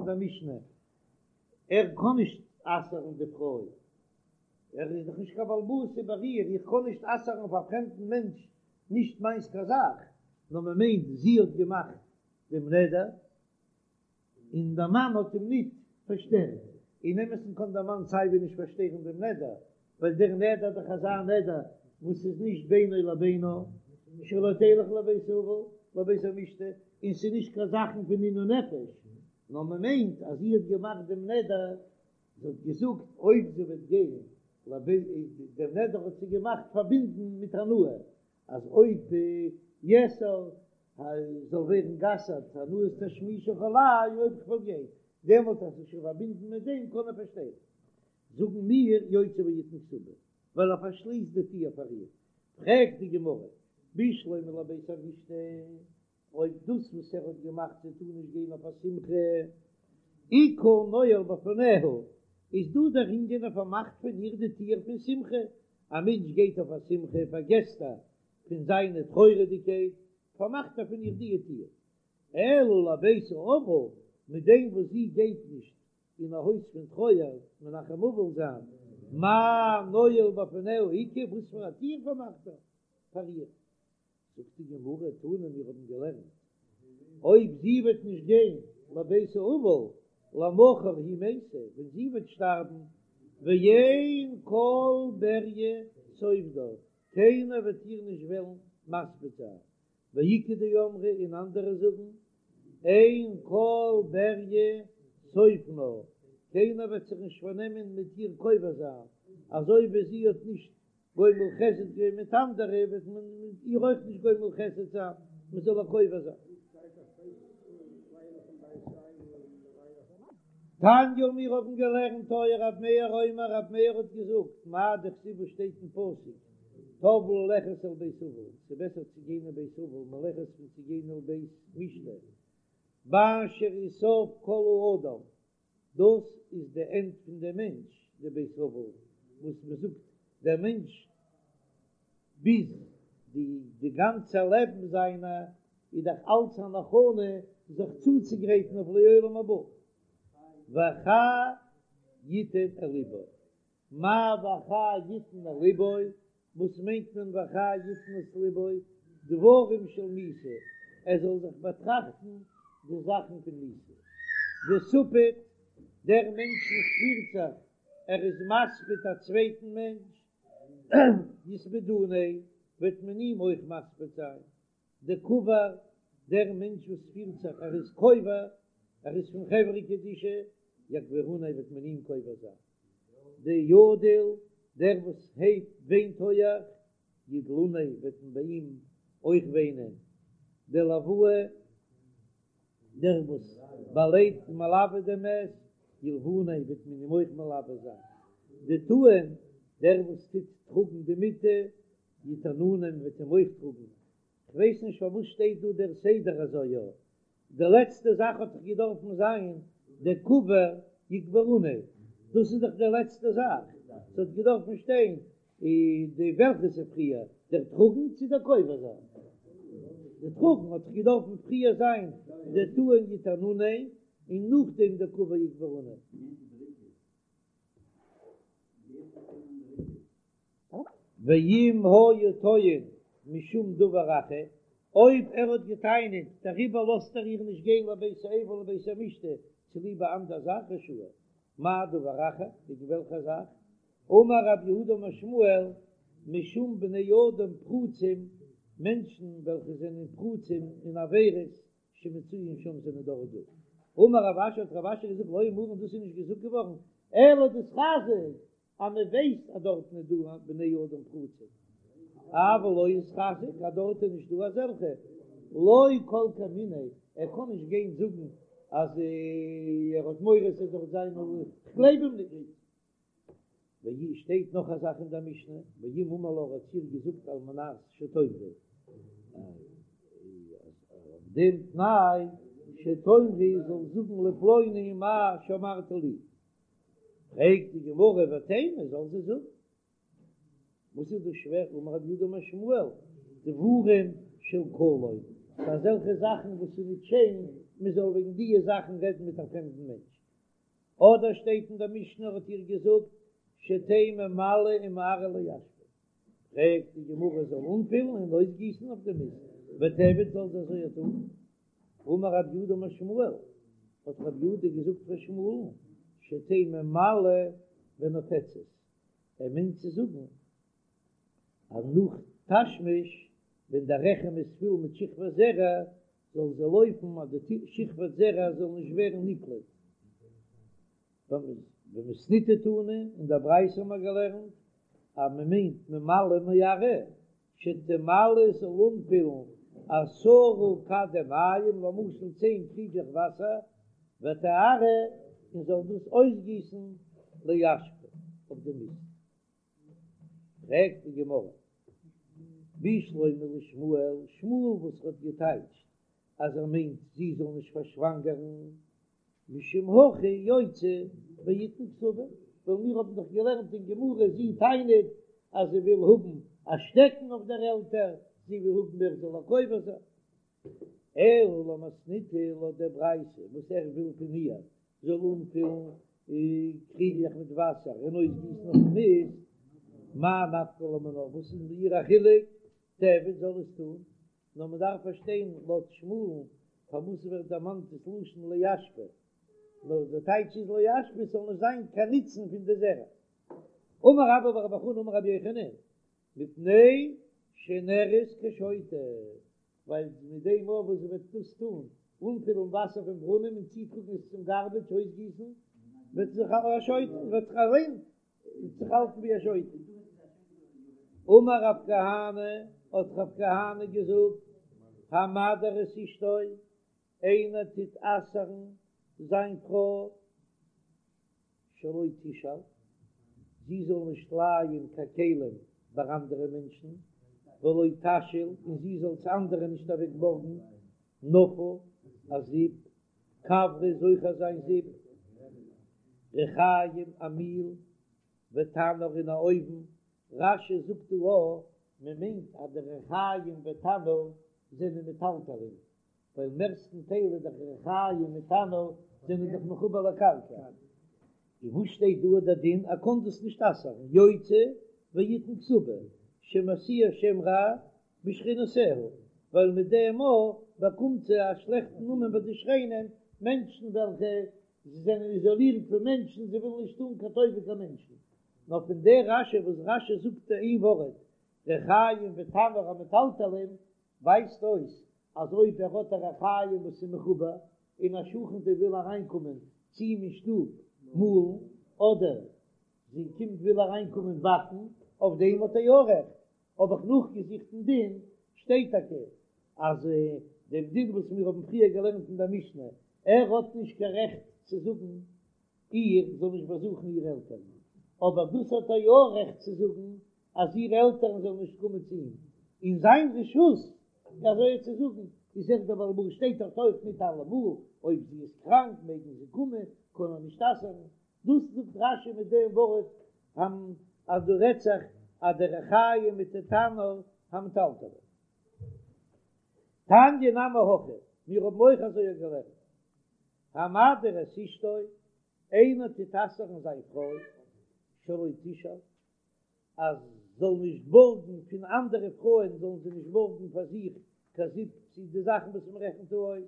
אין דער משנה, ער קען נישט אסר'ן די פרוי, ער איז דאך נישט קיין בעל הבית איבער איר, איך קען נישט אסר'ן אויף א פרעמדן מענטש נישט מיינס קיין זאך, נאר מען מיינט זי האט געמאכט דעם נדר, און דער מאן האט אים ניט פארשטערט, אין אמת'ן קען דער מאן סייווי נישט פארשטערן דעם נדר, ווייל דער נדר איז דאך אזא נדר וואס איז נישט בינו לבינה, שלא תלך לבית אבל, לבית המשתה, און ס'איז נישט קיין זאכן פון עינוי נפש, נאר מען מיינט אז זי האט געמאכט דעם נדר, זי האט געזאגט אויב זי וועט גיין לבית, דעם נדר האט זי געמאכט פארבינדן מיט הנאה, אז אויב יאסר זאל ווערן גע'אסר'ט הנאת תשמישך עלי אויב כ'וועל גיין, דעמאלט אז ס'איז שוין פארבינדן מיט דעם קען ער פארשטערן. זאגן מיר יוציא ויתן כתובה, ווייל ער פארשליסט די טיר פאר איר. פרעגט די גמרא, בשלמא לבית המשתה, אויב דאס וואס ער האט געמאכט זי טאר נישט גיין אויף א שמחה, איכא נועל בפניה, איז דא דער ענין ער פארמאכט פון איר די טיר פון שמחה, א מענטש גייט אויף א שמחה פארגעסט ער פון זיינע טרויעריגקייט, פארמאכט ער פון איר די טיר. אלא לבית האבל, מיט דעם וואס זי גייט נישט אין א הויז פון טרויער מנחם אבל זיין, מאי נועל בפניה איכא, וואס פאר א טיר פארמאכט ער פאר איר? זאגט די גמרא, תנא מיר האבן געלערנט, אויב זי וועט נישט גיין לבית האבל, למחר היא מתה, ווען זי וועט שטארבן, ואין כל בריה סופדה, קיינער וועט איר נישט וועלן מספיד זיין, ואיכא דאמרי און אנדערע זאגן, אין כל בריה סופנה, קיינער וועט זיך נישט פארנעמען מיט איר קובר זיין, אזוי ווי זי האט נישט גומל חסד געווען מיט אנדערע וועט מען מיט איר אויך נישט גומל חסד זיין, מען זאל איר קובר זיין. תניא מיר האבן געלערנט היה רב מאיר אומר רב מאיר האט געזאגט מאי דכתיב וואס שטייט אין פסוק טוב ללכת אל בית אבל ס'איז בעסער צו גיין אין בית אבל מלכת פון צו גיין אל בית משתה באשר הוא סוף כל האדם דאס איז די ענד פון די מענטש, די בית אבל וואס מען זאגט דער מענטש ביז די די גאנצע לעבן זיינע איז דאך אלץ אן הכנה זיך צוצוגרייטן אויף לעולם הבא, והחי יתן אל לבו. מאי והחי יתן אל לבו, וואס מיינט מען והחי יתן אל לבו? דברים של מיתה, ער זאל זיך באטראכטן די זאכן פון מיתה. דספיד, דער מענטש וואס פירט זיך ער איז מספיד א צווייטן מענטש, יספדוניה, וועט מען אים אויך מספיד זיין. דקבר, דער מענטש וואס פירט זיך ער איז קובר, ער איז פון חברה קדישא, יקבורוניה וועט מען אים קובר זיין. דידיל, דער וואס הייבט וויינט הויעך, ידלוניה וועט מען ביי אים אויך וויינען. דלואי, דער וואס באלייט מלווה דעם מת, ילווניה וועט מען אים אויך מלווה זיין. דטעין, דער וואס טוט טראגן די מיטה, יטענוניה מ'וועט אים אויך טראגן. כ'ווייס נישט פארוואס שטייט דא דער סדר אזוי יא. די לעצטע זאך האט דאך געדארפן זיין דקבר יקבורוניה, דאס איז דאך די לעצטע זאך, ס'האט געדארפן שטיין די וועלכע איז פריער, דער טראגן צו דער קובר זיין? די טראגן האט דאך געדארפן פריער זיין דטעין יטענוניה און נאכדעם דקבר יקבורוניה. ואם היה טוען משום דבר אחר, אויב ער האט געטענה'ט דעריבער לאזט ער איר נישט גיין לבית האבל לבית המשתה צוליב א אנדער זאך רשאי, מאי דבר אחר, וועגן וועלכע זאך? אמר רב יהודה אמר שמואל, משום בני אדם פרוצים, מענטשן וועלכע זענען פרוצים אין עבירות שמצויין שם זענען דארט דא. אמר רב אשי האט רב אשי געזאגט לא אמרן דאס איז נישט געזאגט געווארן אלא דאיתחזק אז מען ווייסט אז דארטן איז דא בני אדם פרוצים אבל לא איתחזק אז דארט איז נישט דא אזעלכע לא כל כמיניה ער קען נישט גיין זאגן אז ער האט מורא ס'זאל דארט זיין כ'גלייב אים נישט. ווי שטייט נאך א זאך אין דער משנה, ואם אמר לה האט איר געזאגט על מנת שתאמרי, אז אויף דעם תנאי שתאמרי זאל זאגן לפלוני מה שאמרת לי, פרעגט די גמרא ותימא זאל זי זאגן, וואס איז דא שווער, אמר רב יהודה אמר שמואל, דברים של קלון, ס'איז אזעלכע זאכן וואס איז נישט שיין. מען זאל וועגן דיע זאכן רעדן מיט א פרעמדן מענטש. אדער שטייט אין דער משנה האט איר געזאגט שתהא ממלאה ומערה לאשפה, פרעגט די גמרא זאל אנפילן און אויסגיסן אויף די מיסט, ותיעביד זאל זי אזוי טון. אמר רב יהודה אמר שמואל, האט רב יהודה געזאגט פאר שמואל'ן, שתהא ממלאה ונופצת, ער מיינט צו זאגן אז נאך תשמיש ווען דער רחם איז פול מיט שכבת זרע זאל זי לויפן אז די שכבת זרע זאל נישט ווערן נקלט. במתניתא תנא, אין דער ברייתא האבן מיר געלערנט אז מען מיינט ממלאה ומערה, שתמלא זאל אנפילן עשרה כדי מים, למשל צען קריגלעך וואסער, ותערה און זאל דאס אויסגיסן לאשפה אויף די מיסט. פרעגט די גמרא, בשלמא לשמואל, שמואל וואס האט געטייטשט אז ער מיינט זי זאל נישט פארשוואנגערן, משום הכי יוציא ויתן כתובה, ווייל מיר האבן דאך געלערנט אין גמרא זי טענה'ט אז זי וויל האבן א שטעקן אויף דער עלטער, זי וויל האבן ער זאל איר קובר זיין. אלא למתניתא לויט דער ברייתא וואס ער וויל פון איר זאל אנפילן קריגלעך מיט וואסער און אויסגיסן אויפן מיסט, מאי נפקא לה מינה, וואס איז איר א חילוק, תיעביד זאל עס טון, נאר מען דארף פארשטיין לויט שמואל'ן פארוואס ווערט דערמאנט דאס לשון לאשפה, נאר די טייטש איז לאשפה ס'זאל נישט זיין קיין נוצן פון די זרע. אמר רבה בר בר חנה אמר רבי יוחנן, מפני שנראית כשוטה, ווייל מיט דעם מאל וואס זי וועט דאס טון, אנפילן וואסער פון ברונעם און צוטראגן עס צום גארבעדזש אויסגיסן, וועט זי זיך א שוטה, וועט זיך אליין זיך האלטן ווי א שוטה. אמר רב כהנא, האט רב כהנא געזאגט, המדיר את אשתו, איינער טוט אסר'ן זיין פרוי, שלא תשאל, זי זאל נישט לייען קיין כלים ביי אנדערע מענטשן, ולא תשאיל, און זי זאל צו אנדערע נישט אוועק בארגן, נפה, א זיפ, כברא איז אויך אזא זיפ, ריחים א מיל, ותנור און א אויוון, רש"י זאגט דא א, מען מיינט אז די ריחים ותנור זענען מטלטלין, ווייל מערסטן טייל איז דאך ריחים מיט תנור זענען דאך מחובר לקרקע, און וואס שטייט דא דער דין ער קען דאס נישט אסר'ן, יוציא ויתן כתובה שמשיאה שם רע בשכנותיה, ווייל מיט דעם מאל באקומט זי א שלעכטן נאמען ביי די שכנים, מענטשן וועלכע זענען איזאלירט פון מענטשן, זיי ווילן נישט טון קיין טובה קיין מענטשן. נאר פון דער רש"י וואס רש"י זאגט איין ווארט ריחים ותנור המטלטלין ווייזט אויס אז אויב ער האט א ריחיים וואס איז מחובר און א שכנ'טע וויל אריינקומען צו אים אין שטוב מאלן אדער זי קומט וויל אריינקומען באקן, אויף דעם האט ער יא רעכט. האב איך נאכגעזוכט אין דין, שטייט טאקע אז דעם דין וואס מיר האבן פריער געלערנט אין דער משנה, ער האט נישט קיין רעכט צו זאגן איר זאל נישט באזוכן איר עלטערן, אבער דאס האט ער יא רעכט צו זאגן אז איר עלטערן זאלן נישט קומען צו אים, אין זיין רשות אזוי צו זאגן, איז ער דער בעל הבית, שטייט דארט אויך ניט אלעמאל, אויב זי איז קראנק מעגן זיי קומען, קען ער נישט אסר'ן, דאס זאגט רש"י מיט דעם ווארט המ אז דא רעדט זיך אז די ריחיים מיט די תנור המטלטלין. תניא נמי הכי, מיר האבן אויך אזוי געלערנט, המדיר את אשתו, איינער טוט אסר'ן זיין פרוי, שלא תשאל, אז זאל נישט בארגן פון אנדערע פרויען זאלן זיי נישט בארגן פאר זיך קיין זיפ צו די זאכן וואס מען רעכנט דא אויס,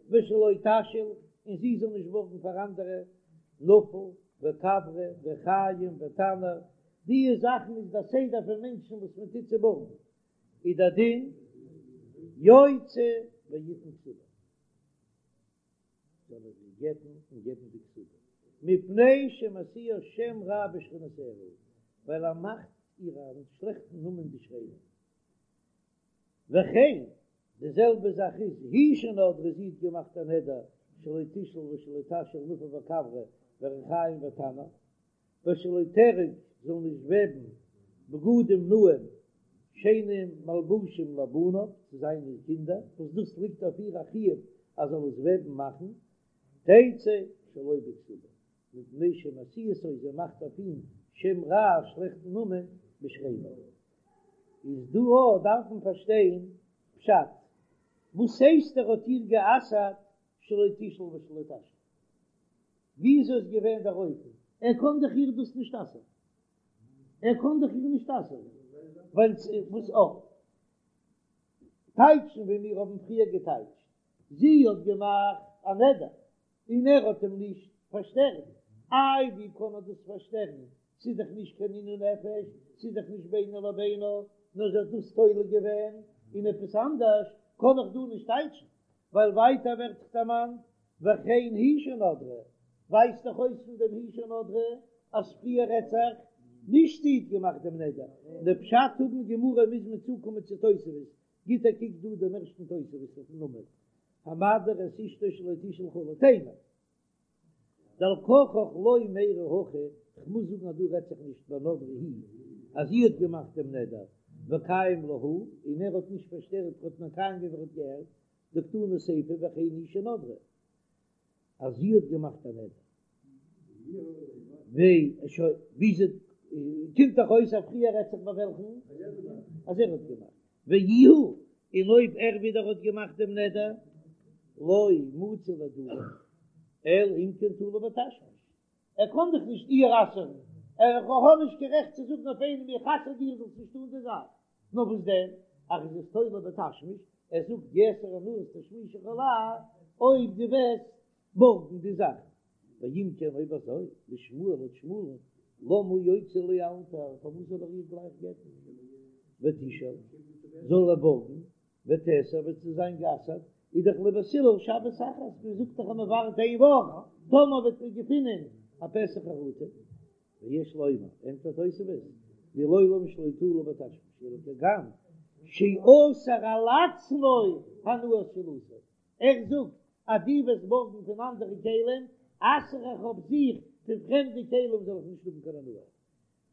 ושלא תשאיל, און זי זאל נישט בארגן פאר אנדערע, נפה וכברא ריחים ותנור, די זאכן איז דער סדר פון מענטשן וואס מען טוט צו בארגן, איז דער דין יוציא ויתן כתובה. זאל ער זי גט'ן און געבן די כתובה, מפני שמשיאה שם רע בשכנותיה, ווייל ער מאכט איר א שלעכטן נאמען די שכנים. וכן, די זעלבע זאך איז היא שנדרה, זי האט געמאכט א נדר שלא תשאל ושלא תשאיל נפה וכברא וריחים ותנור, ושלא תארוג זאל נישט וועבן בגדים נאים שיינע מלבושים לבניו צו זיינע קינדער, וואס דאס ליגט אויף איר א חיוב אז זאל עס וועבן מאכן, תצא שלא בכתובה, מפני שמשיאתו זי מאכט אויף אים שם רע א שלעכטן נאמען בשכניו. איז דא אויך דארף מען פארשטיין פשט, וואס הייסט ער האט איר גע'אסר'ט? שלא תשאל ושלא תשאיל. וויאזוי איז געווען דער אופן? ער קען דאך איר דאס נישט אסר'ן. ער קען דאך איר נישט אסר'ן. ווייל וואס אויך טייטשן ווי מיר האבן פריער געטייטשט, זי האט געמאכט א נדר און ער האט אים נישט פארשטערט, איי ווי קען ער דאס פארשטערן, ס'איז דאך נישט קיין עינוי נפש, ס'איז דאך נישט בינו לבינה, נאר זי האט דאס תולה געווען אין עפעס אנדערש, קען איך דא נישט טייטשן, ווייל ווייטער ווערט דאך דערמאנט וכן היא שנדרה, ווייזט דאך אויס פון דעם היא שנדרה אז פריער רעדט זיך נישט זי האט געמאכט דעם נדר, די פשט האבן גמרא מוז מען צוקומען צו תוספות, גיט א קוק דא דעם ערשטן תוספות אויפן עמוד, המדיר את אשתו שלא תשאל כו' תימא. דעל כרחך לא מיירי הכא, כ'מוז זאגן אז דא רעדט זיך נישט בנדרה היא אז זי האט געמאכט דעם נדר וקיים לה הוא און ער האט נישט פארשטערט האט מקיים געווען ער האט געהערט דקתני סיפא וכן היא שנדרה אז זי האט געמאכט א נדר וויאזוי קומט דאך אויס אז פריער רעדט זיך ביי וועלכן אז ער האט געמאכט ואיהו און אויב ער ווידער האט געמאכט דעם נדר לא מצי לאדורי אלא אם כן תלה בתשמיש ער קען דאך נישט איר אסר'ן ער האט נישט קיין רעכט צו זאגן אויף איינעם איך אסר דיר זאלסט נישט טון די זאך נאר וואס דען אז ער איז עס תולה בתשמיש ער זאגט יאסר הנאת תשמישך עלי אויב דו וועסט בארגן די זאך ואם כן אויב אזוי לשמואל לויט שמואל'ן למה יוציא לאלתר פארוואס זאל ער איר גלייך גט'ן ותשאל זאל ער בארגן ותיאסר וועט זי זיין גע'אסר'ט איז דאך לבית הלל שבת אחת מען זאגט דאך אז מען ווארט איין וואך טאמער וועט מען געפינען א פתח חרטה ויש לומר ענטפערט תוספות דלעולם שלא תלה בתשמיש אלא כגון שאסר על עצמו הנאת שאילתו ער זאגט אז דו וועסט בארגן פון אנדערע כלים, אסר איך אויף זיך פון פרעמדע כלים זאל איך נישט האבן קיין הנאה.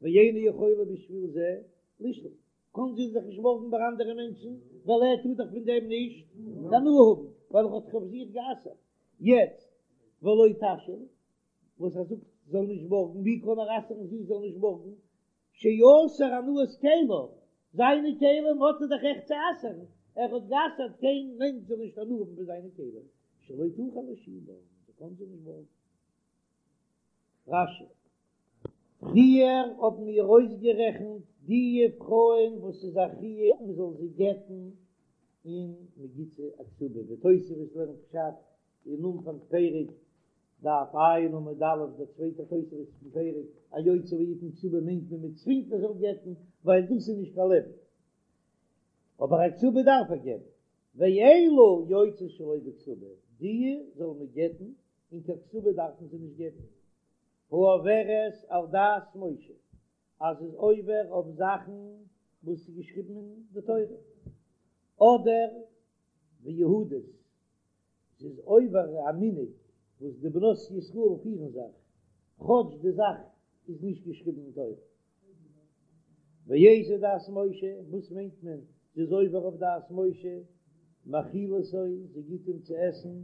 ואינה יכולה בשביל זה לשאול, קען זי זיך נישט בארגן ביי אנדערע מענטשן, ווייל ער טאר דאך פון דעם נישט קיין הנאה האבן, ווייל ער האט זיך אויף זיך גע'אסר'ט. יעצט ולא תשאיל, וואס ער זאגט זאל נישט בארגן, ווי קען ער אסר'ן זי זאל נישט בארגן? שאסר הנאת כליו, זיינע כלים האט ער דאך רעכט צו אסר'ן, ער האט גע'אסר'ט קיין מענטש זאל נישט הנאה האבן פון זיינע כלים, שלא תוכל לשאולם, זי קען זיי נישט בארגן. רש"י. פריער האבן מיר אויסגערעכנט די פרויען וואס איז א חיוב מען זאל זיי גט'ן און מען גיט זיי א כתובה, ווי תוספות לערנט פשט אין אנפאנג פרק דף ע' עמוד א', דער צווייטער תוספות פון פרק, א יוציא ויתן כתובה מיינט מען מען צווינגט ער זאל גט'ן, ווייל דאס איז נישט קיין לעבן, אבער א כתובה דארף ער געבן, ואלו יוצאות שלא בכתובה, די זאל מען גט'ן און קיין כתובה דארפן זיי נישט געבן, העוברת על דת משה, אז זי איז עובר אויף זאכן וואס איז געשריבן אין די תורה, אדער ויהודית, זי איז עובר א מנהג וואס די בנות ישראל פירן זיך, כאטש די זאך איז נישט געשריבן אין תורה. ואיזה דת משה, וואס מיינט מען זי איז עובר אויף דת משה? מאכילתו, זי גיט אים צו עסן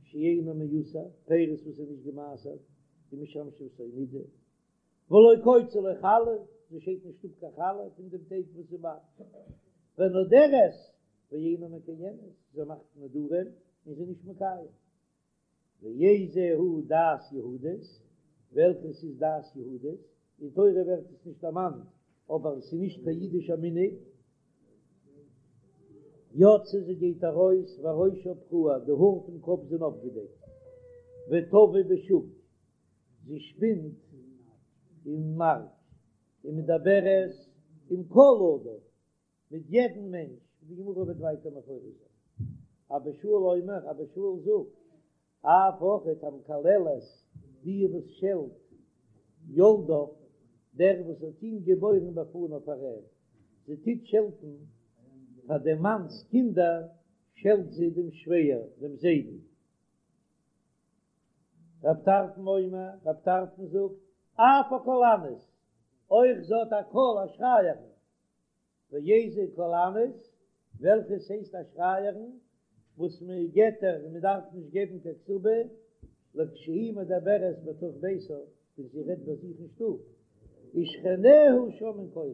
שאינו מעושר, פירות וואס איז נישט געמעשרט, ומשמשתו נידה, ולא קוצה לו חלה, זי שיידט נישט אפ קיין חלה פון דעם טייג וואס זי מאכט, ונודרת ואינה מקיימת, זי מאכט נדרים און זי איז נישט מקיים. ואיזה הוא דת יהודית, וועלכעס איז דת יהודית, אין תורה ווערט עס נישט דערמאנט, אבער עס איז נישט קיין אידישער מנהג. יוצאה זי גייט ארויס וראשה פרוע, די האר פון קאפ זענען אפגעדעקט, וטווה בשוק, זי שפינט אין מארק, ומדברת עם כל אדם, מיט יעדן מענטש, ווי די גמרא וועט ווייטער מפרש זיין. אבא שאול אומר, אבא שאול זאגט, אף אויכעט המקללת, די וואס שעלט יולדיו, דער וואס האט אים געבוירן בפניו פאר אים, זי טוט שעלטן פאר דעם מאנ'ס קינדער, שעלט זי דעם שווער, דעם זיידן. רב טרפון אומר, רב טרפון זאגט, אף הקולנית, אויך זי האט א קול א שרייערין, ואיזה קולנית, וועלכעס הייסט א שרייערין, וואס מען גט איר און מען דארף נישט געבן קיין כתובה, לכשהיא מדברת בתוך ביתה, ווען זי רעדט ביי זיך אין שטוב, ושכניה שומעין קולה,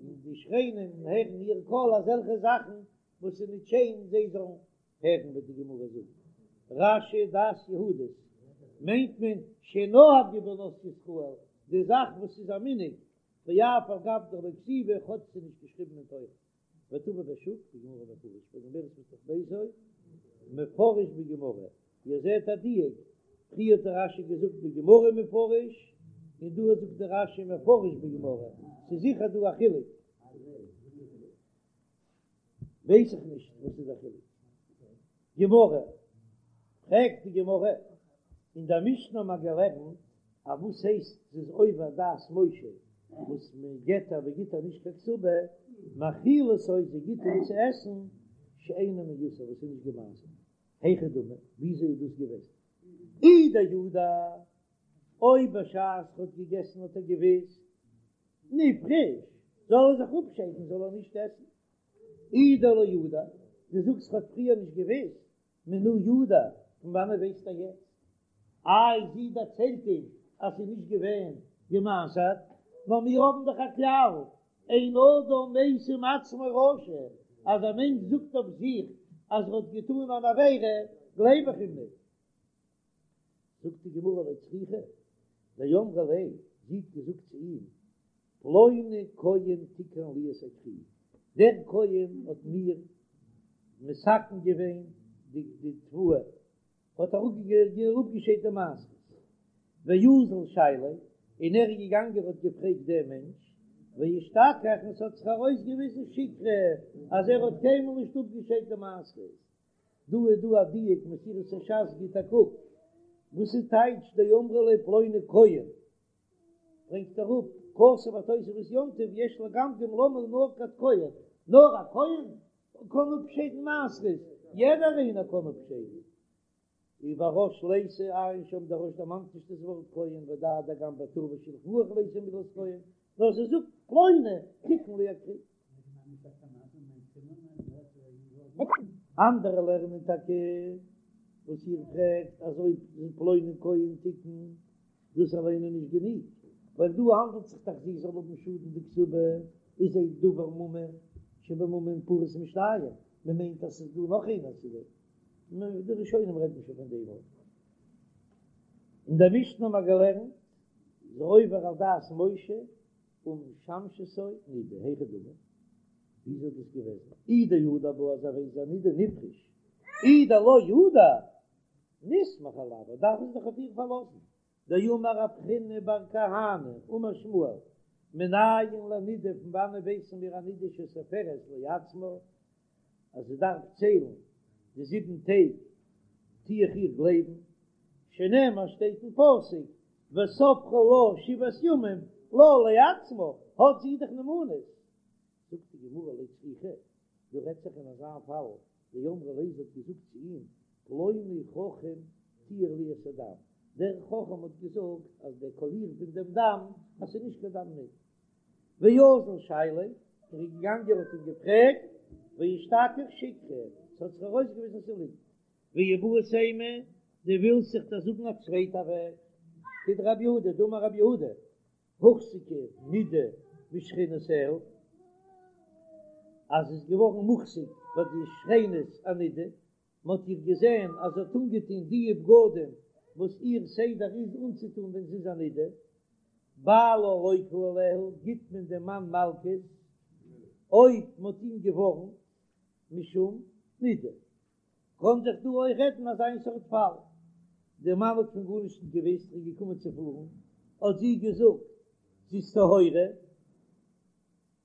און די שכנים הערן איר קול אזעלכע זאכן וואס איז נישט שיין זיי זאלן הערן וועט די גמרא זאגן. רש"י דת יהודית מיינט מען שנהגו בנות ישראל, די זאך וואס איז א מנהג, ואף על גב דלא כתיבא, כאטש ס'איז נישט געשריבן אין תורה. ותבא בשוק בגמרא מפרש והגומרת בתוך ביתו מפרש בגמרא, איר זעט א דיוק, פריער האט דער רש"י געזאגט בגמרא מפרש, און דא זאגט דער רש"י מפרש בגמרא, ס'איז זיכער דא א חילוק. ווייס איך נישט וואס איז דער חילוק. גמרא, פרעגט די גמרא, אין דער משנה האט מען געלערנט אז וואס הייסט ס'איז עובר דת משה וואס מען גט איר מען גיט איר נישט קיין כתובה, מאכילתו זי גיט אים צו עסן שאינו מעושר וואס איז נישט געמעשר'ט, היכי דמי, וויאזוי איז דאס געוועזן? אי דידע, אויב בשעת ער האט געגעסן האט ער געוויסט, נפרוש, זאל ער זיך אפשיידן זאל ער נישט עסן. אי דלא ידע, דו זאגסט ער האט פריער נישט געוויסט, מנא ידע, פון וואנעט ווייסט ער יעצט? איי זי דערציילט אים אז ס'איז נישט געווען געמעשר'ט, נאר מיר האבן דאך א כלל, אין אדם משים עצמו רשע, אז א מענטש זאגט אויף זיך אז ער האט געטאן אן עבירה, גלייב איך אים נישט. זאגט די גמרא לא צריכא דאמרה ליה, זי האט געזאגט צו אים, פלוני כהן תיקן לי את הכרי, דער כהן האט מיר מתקן געווען די תבואה, האט אראפגעשיידט די מעשרות, ואזל שייליה, און ער איז געגאנגען האט געפרעגט דעם מענטש, ואשתכח און ס'האט זיך ארויסגעוויזן שיקרא אז ער האט קיינמאל נישט אפגעשיידט די מעשרות, דא איז דא א דיוק מסורת הש"ס גיט א קוק וואס איז טייטש דאמרה ליה פלוני כהן ברענגט אראפ כתב התוספות יום טוב יש לגמגם למה נקט כהן נאר א כהן קען אפשיידן מעשרות יעדער איינער קען אפשיידן וברא"ש ליתא עיין שם דער רא"ש דערמאנט נישט דאס ווארט כהן ודע דגם בטור ושולחן ערוך ליתא מילת כהן נאר זי זאגט פלוני תיקן לי הכרי. אנדערע לערנען טאקע וואס איר פרעגט אז אויב פלוני כהן תיקן דאס אליין איז נישט גענוג, ווייל דא האנדלט זיך דאך זי זאל האבן שאדן די כתובה איז א דבר ממון שבממון פחות משתיים, מען מיינט אז ס'איז דא נאך איינער צו דעם, די ראשונים רעדן שוין פון דעם אויך. אין דער משנה האבן מיר געלערנט איז עובר על דת משה ומשמשתו נידה, היכי דמי, וויאזוי איז דאס געוועזן? אי דידע בה אז ער ווייסט זי איז א נידה נפרוש, אי דלא ידע נסמוך עילוה, דארף מען זיך אויף איר פארלאזן, דאמר רב חיננא בר כהנא אמר שמואל, מנין לנידה פון וואנען ווייסן מיר א נידה שסופרת לעצמה אז זי דארף ציילן די זיבן טעג טו איך איר גלייבן, שנאמר שטייט אין פסוק וספרה לה שבעת ימים לה לעצמה, האט זי דאך נאמנות. זאגט די גמרא לא צריכא, דא רעדט זיך אין אזא פאל, דאמרה ליה זי האט געזאגט צו אים, פלוני חכם טיהר לי את הדם, דער חכם האט געזאגט אז דער קאליר פון דעם דם אז ס'איז נישט קיין דם נידה. ואזל שייליה, ער איז געגאנגען האט אים געפרעגט, ואשתכח שיקרא, ס'האט זיך ארויסגעוויזן ס'איז ליגנט. ואיבעית אימא, דו ווילסט זיך דאך זאגן א צווייטע וועג, כדרב יהודה, דאמר רב יהודה, הוחזקה נידה בשכנותיה, אז איז געווארן מוחזק ביי די שכנות א נידה, מען האט איר געזען אז זי האט אנגעטון די בגדים וואס איר סדר איז אנצוטון ווען זי איז א נידה, בעלה לוקה עליה, גיט מען דעם מאן מלקות אויב מען האט אים געווארנט משום נידה. קען זיך דא אויך רעדן אזא איין סארט פאל, דער מאן האט פון גארנישט נישט געוואוסט, ער איז געקומען צו פארן, האט זי געזאגט זי איז טהורה,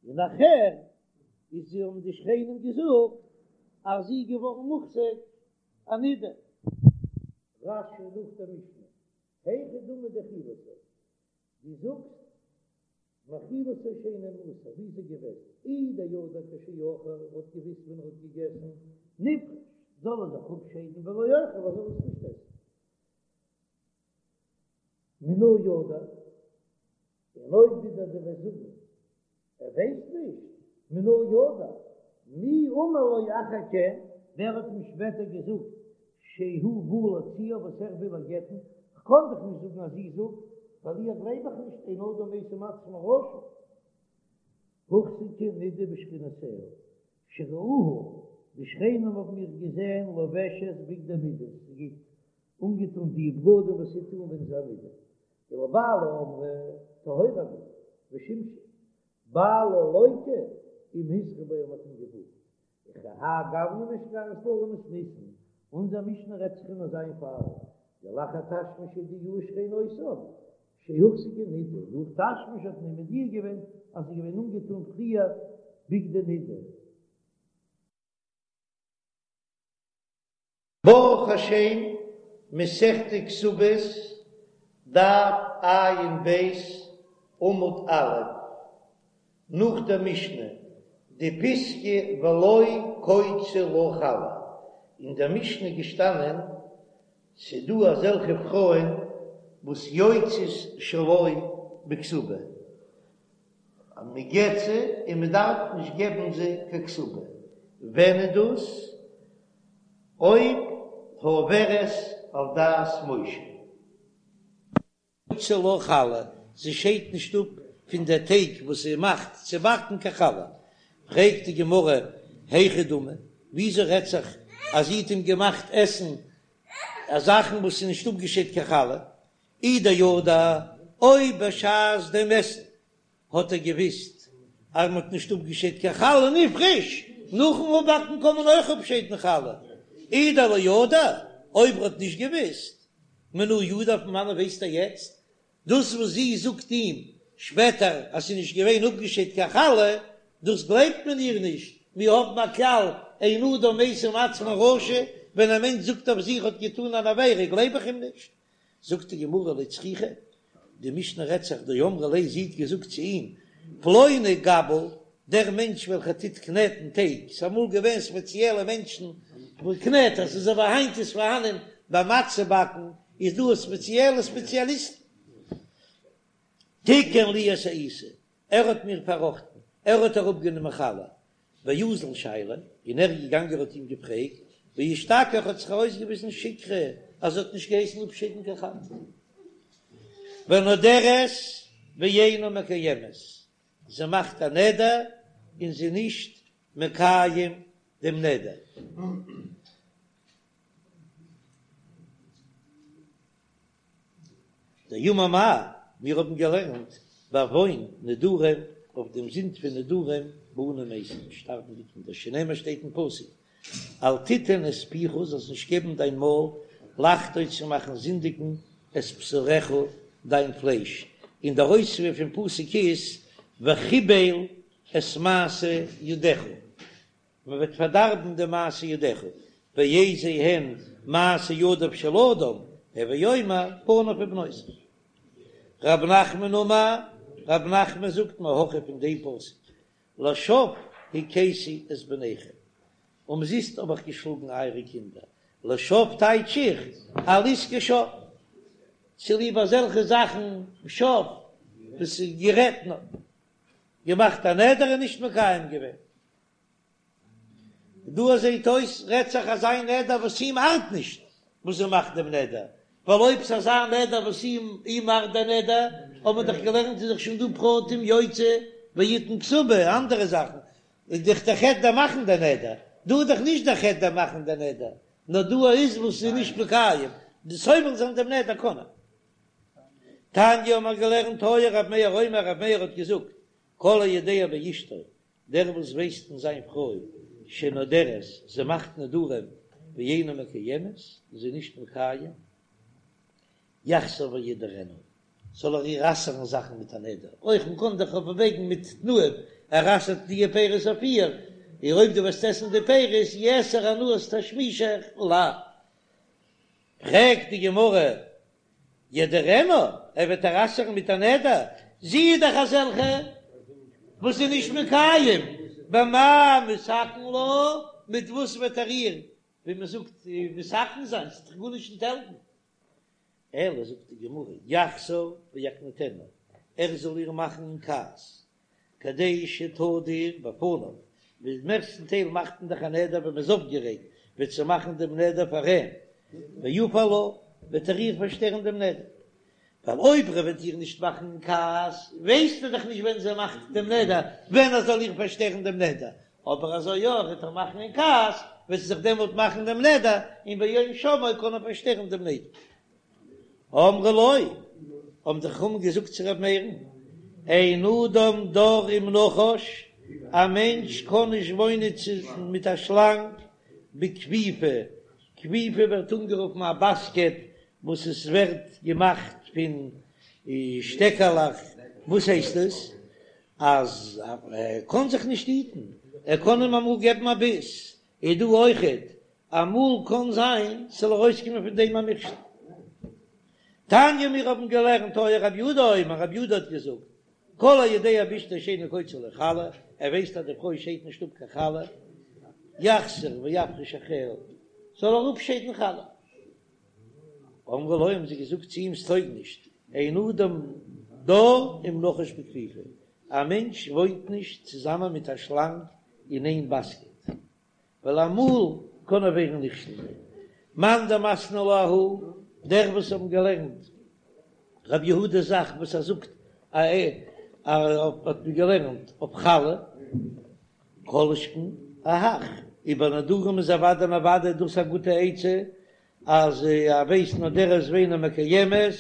און נאכהער איז זי האבן די שכנים געזאגט אז זי איז געווארן מוחזק א נידה. רש"י נאך דער משנה, היכי דמי דאכילתו, דו זאגסט מאכילתו שאינו מעושר, ווי איז ער געוועזן? אי דידע כשאכל, ער האט געוויסט ווען ער האט געגעסן, נפרוש, זאל ער זיך אפשיידן ולא יאכל, ער זאל עס נישט עסן. מנא ידע, און אויב ווידער דו וועסט זאגן ער ווייסט נישט, מנא ידע, מי אמר לו אחר כן, ווער האט אים שפעטער געזאגט שהוא בא להוציאה וואס ער וויל איר גט'ן, כ'קען דאך נישט זאגן אז זי זאגט, ווייל איר גלייב איך נישט, אין אדם משים עצמו רשע. הוחזקה נידה בשכנותיה, שראוה. די שכנים האבן איר געזען לובשת בגדי נידה, זי גייט אנגעטון די בגדים וואס זי טוט אן ווען זי איז א נידה, ולבעלה אמרה טהורה אני ושימשה, בעלה לוקה אם הזהירו בו מ'האט אים געווארנט, וכי האי גוונא משכחת לה למתניתין, אונזער משנה רעדט זיך אין אזא איין פאל, דלאחר תשמיש הודיעוה שכנותיו שהוחזקה נידה, נאך תשמיש האט מען מודיע געווען אז זי איז געווען אנגעטון פריער בגדי נידה. ברוך השם, מסכת כתובות, דף ע"ב, עמוד א', נאך דער משנה, די פיסקא ולא קוצו לה חלה, אין דער משנה געשטאנען, ס'דא אזעלכע פרויען וואס יוצאות שלא בכתובה, אז מען גט זיי און מען דארף נישט געבן זיי קיין כתובה, ווען איז דאס? אויב העוברת על דת משה. קוצה לה חלה, זי שיידט נישט אפ פון די טייג וואס זי מאכט צו באקן קיין חלה. פרעגט די גמרא, היכי דמי, וויאזוי רעדט זיך אז זי האט אים געמאכט עסן זאכן וואס איז נישט אפגעשיידט קיין חלה? אי דידע, אויב בשעת דעם עסן האט ער געוויסט אז מען האט נישט אפגעשיידט קיין חלה נפרש, נאכן אפבאקן קען מען אויך אפשיידן חלה, אי דלא ידע, אויב ער האט נישט געוויסט, מנא ידע פון וואנען ווייסט ער יעצט? דאס וואס זי זאגט אים שפעטער אז ס'איז נישט געווען אפגעשיידט קיין חלה, דאס גלייבט מען איר נישט, מיר האבן א כלל אין אדם משים עצמו רשע, ווען א מענטש זאגט אויף זיך האט געטאן אן עבירה גלייב איך אים נישט, זאגט די גמרא לא צריכא, די משנה רעדט זיך דאמרה ליה זי האט געזאגט צו אים, פלוני גבל, דער מענטש וועלכער טוט קנעטן טייג, ס'איז אמאל געווען ספעציעלע מענטשן וואס קנעטערס, אזוי ווי היינט איז פארהאנען ביי מצה באקן איז דא ספעציעלע ספעציאליסטן, תיקן לי את העיסה, ער האט מיר פארראכטן, ער האט אראפגענומען חלה, ואזל שייליה, און ער איז געגאנגען האט אים געפרעגט, ואשתכח האט זיך ארויסגעוויזן שיקרא אז ער האט נישט געהייסן אפשיידן קיין חלה. ונודרת ואינה מקיימת, זי מאכט א נדר און זי איז נישט מקיים דעם נדר. דאמר מר, מיר האבן געלערנט בעוון נדרים, אויף דעם זינד פון נדרים בנים מתים, שטארבן די קינדער, שנאמר שטייט אין פסוק, אל תתן את פיך, זאלסט נישט געבן דיין מויל, לחטוא צו מאכן זינדיגן את בשרך, דיין פלייש, און דער אויספיר פון פסוק איז, וכבל את מעשה ידיך. מען וועט פארדארבן די מעשה ידיך, ואיזה הן מעשה ידיו של אדם, הוי אומר בניו ובנותיו. רב נחמן אמר, רב נחמן זאגט מהכא פון דעם פסוק, לשוא הכיתי את בניכם, אומזיסט האב איך געשלאגן אייערע קינדער, לשוא טייטש איך על עסקי שוא, צוליב אזעלכע זאכן שוא וואס איז גערעדט נאר געמאכט א נדר און נישט מקיים געווען. דא זעהט אויס רעדט זיך אזא נדר וואס אים ארט נישט וואס ער מאכט דעם נדר, ווייל אויב ס'איז אזא נדר וואס אים אים ארט דער נדר, האט מען דאך געלערנט איז דאך שוין דא פרטים יוציא ויתן כתובה אנדערע זאכן, איז דאך דער חטא דער מאכן דער נדר, דא איז דאך נישט דער חטא דער מאכן דער נדר, נאר דא איז וואס איז נישט מקיים, די סובל זיין דעם נדר קען ער. תניא האט מען געלערנט היה ר' מאיר אומר ר' מאיר האט געזאגט כל היודע באשתו דער וואס ווייסט אין זיין פרוי שנודרת, זי מאכט נדרים ואינה מקיימת, און זי איז נישט מקיים, יחזור וידרנה, זאל ער איר אסר'ן זאכן מיט א נדר, אויך מען קען דאך אויפוועגן מיט תנאים, ער אסר'ט די פירות אויף איר, און אויב דו וועסט עסן די פירות יאסר הנאת תשמישך עלי. פרעגט די גמרא, ידרנה, ער וועט איר אסר'ן מיט א נדר, זי איז דאך אזעלכע וואס איז נישט מקיים, במה מתקן לה, מיט וואס וועט ער איר, ווי מען זאגט, מתקן זיין, ס'וועט דאך גארנישט נישט העלפן. אלא זאגט די גמרא, יחזור ויקניטנה, ער זאל איר מאכן אין כעס, כדי שתדור בפניו, ווי מערסטן טייל מאכט מען דאך א נדר ווען מען איז אויפגערעגט, וועט זי מאכן דעם נדר פאר אים, ויפר לה, וועט ער איר פארשטערן דעם נדר, ווייל אויב ער וועט איר נישט מאכן אין כעס, ווייסט ער דאך נישט ווען זי מאכט דעם נדר, ווען ער זאל איר פארשטערן דעם נדר, אבער אזוי יא ער וועט איר מאכן אין כעס, וועט זי זיך דעמאלט מאכן דעם נדר, און ביום שמעו קען ער פארשטערן דעם נדר. אמרו לו, האבן די חכמים געזאגט צו ר' מאיר'ן, אין אדם דר עם נחש, א מענטש קען נישט וואוינען מיט א שלאנג בכפיפה, כפיפה ווערט אנגערופן א באסקעט וואס עס ווערט געמאכט פון שטעקעלעך, וואס הייסט עס? אז ער קען זיך נישט היטן, ער קען אים אמאל געבן א ביס, איז דא אויכעט, אמאל קען זיין ס'זאל ארויסקומען פון דעם א מכשול. תניא מיר האבן געלערנט היה רבי יהודה אומר, רבי יהודה האט געזאגט, כל היודע באשתו שאינה קוצה לו חלה, ער ווייסט אז די פרוי שיידט נישט אפ קיין חלה, יחזור ויפריש אחריה, זאל ער אפשיידן חלה. אמרו לו האבן זיי געזאגט צו אים ס'טויג נישט, אין אדם דר עם נחש בכפיפה, א מענטש וואוינט נישט צוזאמען מיט א שלאנג אין איין באסקעט, ווייל אמאל קען ער ווערן נכשל. מאן דמתני לה אהא, דער וואס האבן געלערנט רבי יהודה'ס זאך וואס ער זאגט א ע האט מען געלערנט אויף חלה, כל שכן אהך, איבער נדרים איז אוודאי און אוודאי דאס א גוטע עצה, אז ער ווייסט נודרת ואינה מקיימת,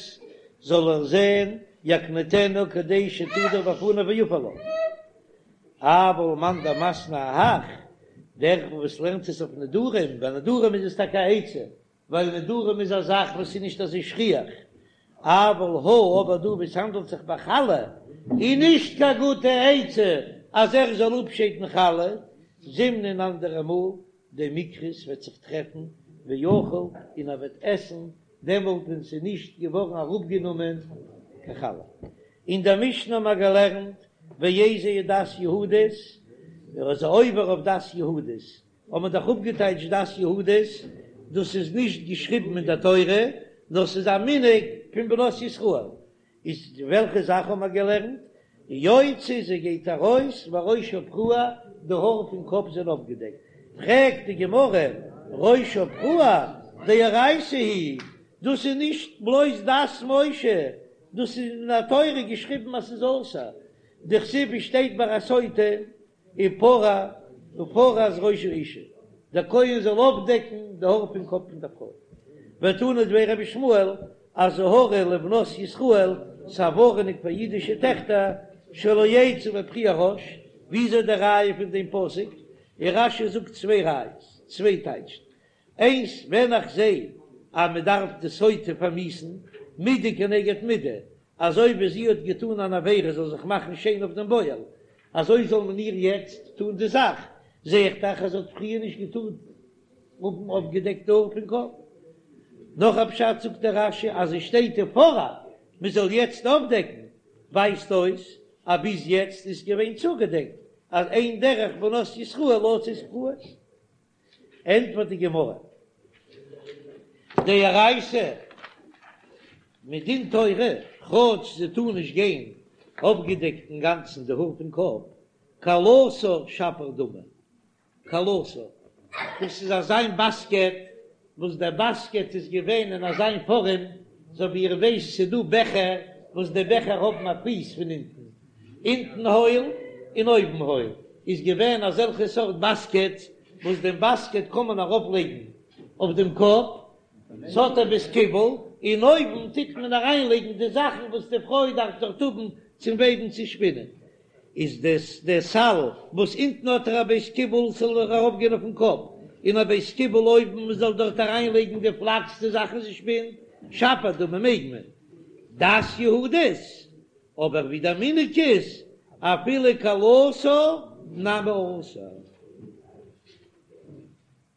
זאל ער זען יקניטנה כדי שתדור בפניו ויפר לה. אבל מאן דמתני אהך, דער וואס לערנט עס אויף נדרים, ביי נדרים איז עס טאקע א עצה, ווייל נדרים איז א זאך וואס איז נישט אזוי שכיח, אבל הא, אבער דא וואו ס'האנדלט זיך ביי חלה, איז נישט קיין גוטע עצה אז ער זאל אפשיידן חלה, זימנין אנדערע מאל דמיקרי ס'וועט זיך טרעפן ואכיל און ער וועט עסן דעמאלט ווען ס'איז נישט געווארן אראפגענומען קיין חלה. אין דער משנה האבן מיר געלערנט ואיזוהי דת יהודית, ער איז עובר אויף דת יהודית, האט מען דאך אפגעטייטשט דת יהודית, דאס איז נישט געשריבן אין דער תורה, נאר ס'איז א מנהג פון בנות ישראל, איז וועלכע זאך האבן מיר געלערנט? יוצאה זי גייט ארויס וראשה פרוע, די האר פון קאפ זענען אויפגעדעקט, פרעגט די גמרא, ראשה פרוע דאורייתא היא, דאס איז נישט בלויז דת משה, דאס איז אין די תורה געשריבן אז ס'איז אסור, דכתיב שטייט ביי א סוטה ופרע ופרע את ראש האשה, דער כהן זאל אויפדעקן די האר פון קאפ פון דער פרוי. ותנא דבי רבי ישמעאל, אזהרה לבנות ישראל, ס'א ווארענונג פאר אידישע טעכטער, שלא יצאו בפרוע ראש, וויאזוי די ראיה פון דעם פסוק? און רש"י זאגט צוויי ראיות, צוויי טייטשן, איינס, ווען איך זע אז מען דארף די סוטה פארמיאוסן, מידה כנגד מידה, אזוי ווי זי האט געטאן אן עבירה זאל זיך מאכן שיין אויף דעם בועל, אזוי זאל מען איר יעצט טאן די זאך, זע איך דאך אז זי האט פריער נישט געטארט האבן אויפגעדעקט די האר פון קאפ. נאך א פשט זאגט דער רש"י אז עס שטייט ופרע מען זאל יעצט אויפדעקן, ווייזט אויס אז ביז יעצט איז געווען צוגעדעקט, אז אין דרך בנות ישראל לצאת פרועות. ענטפערט די גמרא, דאורייתא מדין תורה, כאטש זי טאר נישט גיין אויפגעדעקט אינגאנצן די האר פון קאפ, כלתה שפיר דמי, כלתה, דאס איז אזיין באסקעט, וואס דער באסקעט איז געווען אין אזיין פארעם, אזוי ווי איר ווייסט ס'איז דא בעכער וואס די בעכער האבן א פיס פון אונטן, אונטן הויל און אויבן הויל, איז געווען אזעלכע סארט באסקעטס וואס דעם באסקעט קען מען ארויף לייגן אויף דעם קאפ, ס'האט א בית קיבול, און אויבן טוט מען אריין לייגן די זאכן וואס די פרוי דארף דארט האבן צום וועבן צו שפינען, איז דאס דער סל וואס אונטן האט ער א בית קיבול ס'זאל ארויף גיין אויפן קאפ, און א בית קיבול אויבן מען זאל דארט אריין לייגן די פלאקס די זאכן זי שפינט, שפיר דמי מעג מען. דת יהודית, אבער ווי דער מנהג איז אפילו כלתה נמי אסור.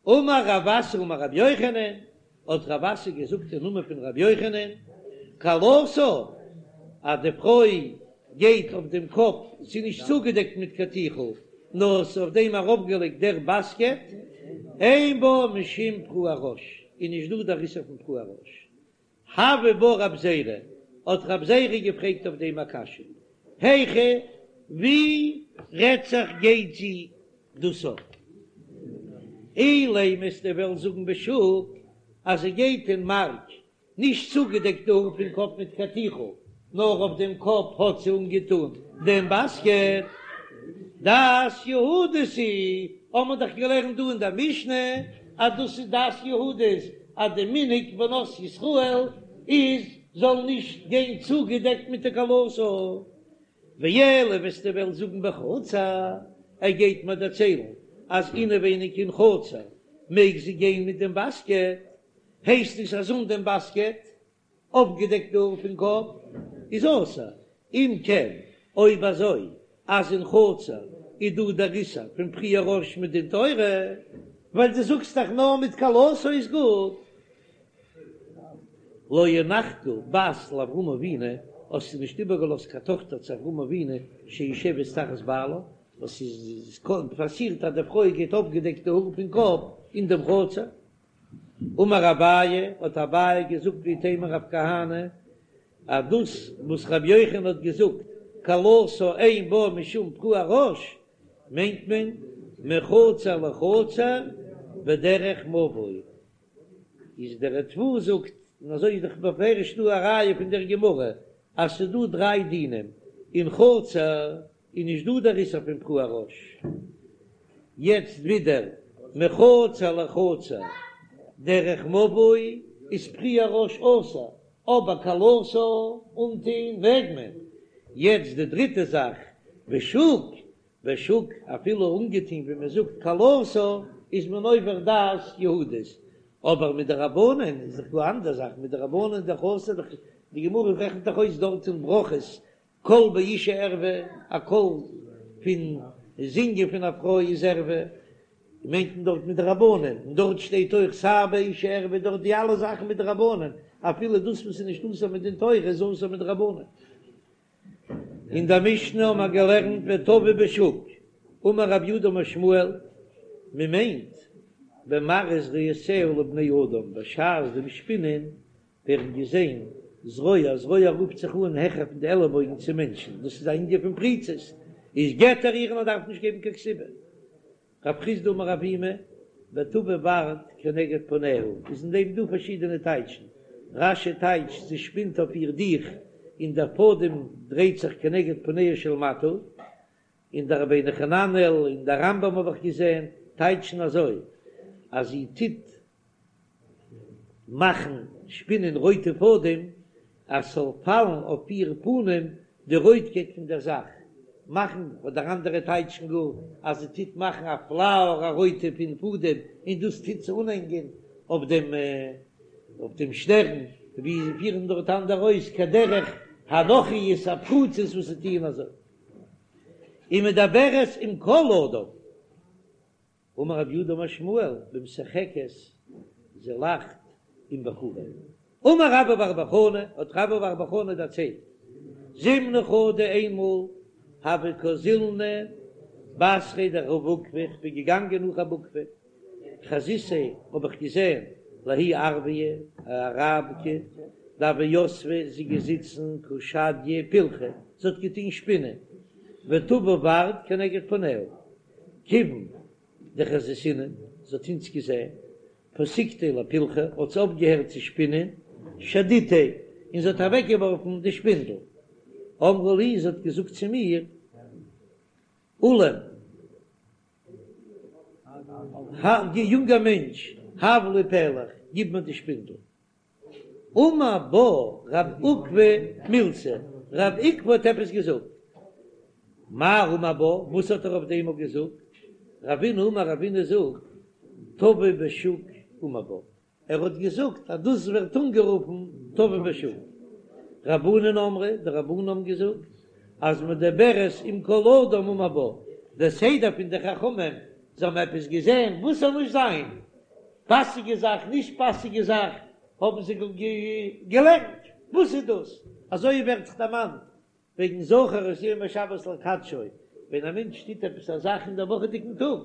אמר רב אסי אמר רבי יוחנן, האט רב אסי געזאגט אין נאמען פון רבי יוחנן, כלתה, אז די פרוי גייט אויף דעם קאפ, ס'איז נישט צוגעדעקט מיט קיין טיכל, נאר ס'איז אויף דעם ארויפגעלייגט דער באסקעט, אין בה משום פרוע ראש, איז נישט דא דער איסור פון פרוע ראש. הוי בה רב זירא, האט רב זירא געפרעגט אויף דעם א קשיא, היכא, ווי רעדט זיך גייט זי דאס אפ? אילימא וועסטו וועלן זאגן בשוק אז זי גייט אין מארק נישט צוגעדעקט די האר פון קאפ מיט קיין טיכל, נאר אויף דעם קאפ האט זי אנגעטון דעם באסקעט. דעת יהודית היא, האבן מיר דאך געלערנט דא אין דער משנה אז דאס איז דעת יהודית אז די מנהג בנות ישראל איז זאל נישט גיין צוגעדעקט מיט די כלתה. ואלא וועסטו וועלן זאגן בחצר, ער גייט מיר דערציילן אז אינעווייניג אין חצר מעג זי גיין מיט דעם באסקעט, הייסט עס אז אן דעם באסקעט אויפגעדעקט די האר פון קאפ איז אסור, אם כן אויב אזוי אז אין חצר איז דא דער איסור פון פריעה ראש מדין תורה, ווייל דו זאגסט דאך נאר מיט כלתה איז גוט. לא הנחת בת לאברהם אבינו, האסטו נישט איבערגעלאזט קיין טאכטער צו אברהם אבינו שיושבת תחת בעלה, וואס איז פאסירט אז די פרוי גייט אויפגעדעקט די האר פון קאפ אין דעם חצר. אמר אביי, האט אביי געזאגט ואיתימא רב כהנא, אז דאס וואס רבי יוחנן האט געזאגט כלתה אין בה משום פרוע ראש, מיינט מען מחצר לחצר בדרך מבוי, איז דער ריטב"א זאגט, און אזוי איז דאך בפירוש דא א ראיה פון דער גמרא, אז ס'איז דא דריי דינים, אין חצר איז נישט דא דער איסור פון פרוע ראש, יעצט ווידער מחצר לחצר דרך מבוי איז פריעת ראש אסור, אבער כלתה אנטוהן מעג מען, יעצט די דריטע זאך בשוק, בשוק אפילו אנגעטוהן ווי מען זאגט כלתה איז מען עובר דעת יהודית, אבער מדרבנן איז דאך דא אנדער זאך, מדרבנן איז דאך אסור, די גמרא רעכנט דאך אויס דארט אין ברכות קול באשה ערוה, א קול פון זינגען פון א פרוי איז ערוה, מיינט מען דארט מדרבנן, און דארט שטייט אויך שער באשה ערוה, דארט די אלע זאכן מדרבנן, אפילו דאס וואס איז נישט אסור מדין תורה איז אסור מדרבנן. אין דער משנה האבן מיר געלערנט וטווה בשוק, אמר רב יהודה אמר שמואל, מען מיינט במראה זרועותיה לבני אדם בשעת דעם שפינען ווערן געזען זרוע, זרוע רופט זיך אן העכער פון די עלעבויגן צו מענטשן, דאס איז א ענין פון פריצות, איז גט ער איר און ער דארף נישט געבן קיין כתובה. רב חסדא אמר אבימי, וטוה ורד כנגד פניה, איז אין דעם דא פארשידענע טייטשן, רש"י טייטשט זי שפינט אויף איר דיך און דער פאדעם דרייט זיך כנגד פניה של מטה, און דער רבינו חננאל און דער רמב"ם האב איך געזען טייטשן אזוי אז זי טוט מאכן שפינען רויטע פאדעם אז ס'זאל פאלן אויף איר פנים די רויטקייט פון דער זאך, מאכן, אדער אנדערע טייטשן גאר אז זי טוט מאכן א פלאוער א רויטע פון פאדעם און דאס טוט זי אנהענגען אויף דעם אויף דעם שטערן, ווי זיי פירן דארט אנדערע אויס כדרך הנכריות הפרוצות וואס זיי טוען אזוי. ומדברת עם כל אדם. אמר רב יהודה אמר שמואל במשחקת זי לאכט עם בחורים. אמר רבה בר בר חנה, האט רבה בר בר חנה דערציילט, זימנא חדא איינמאל הוה קאזילנא בתריה דרב עוקבא, איך בין געגאנגען נאך רב עוקבא, חזיתיה האב איך געזען לההיא ערביא א אראבקע דהוה יתבה זי געזיצן קא שדיא פילכא זי האט געטון שפינען וטוה ורד כנגד פניה כיוון דחזיתינן זי האט אונז געזען פסקתיה לפילכא האט זי אויפגעהערט צו שפינען שדיתיה און זי האט אוועקגעווארפן די שפינדל אמרה לי זי האט געזאגט צו מיר עילם יונגער מענטש, הב לי פלך, גיב מיר די שפינדל. אמר בה רב עוקבא מילתא, רב עוקבא האט עפעס געזאגט. מאי אמר בה, וואס האט ער אויף דעם געזאגט? רבינא אמר, רבינא זאגט, טווה בשוק אמר בה, ער האט געזאגט אז דאס ווערט אנגערופן טווה בשוק. רבנן אמרי, די רבנן האבן געזאגט אז מדברת עם כל אדם אמר בה, דער סדר פון די חכמים, זיי האבן עפעס געזען וואס זאל נישט זיין, פאסיגע זאך, נישט פאסיגע זאך, האבן זיי געלערנט, וואס איז דאס? אזוי ווערט זיך דערמאנט וועגן זכור את יום השבת לקדשו, ווען א מענטש טוט עפעס א זאך אין דער וואכעדיגן טאג,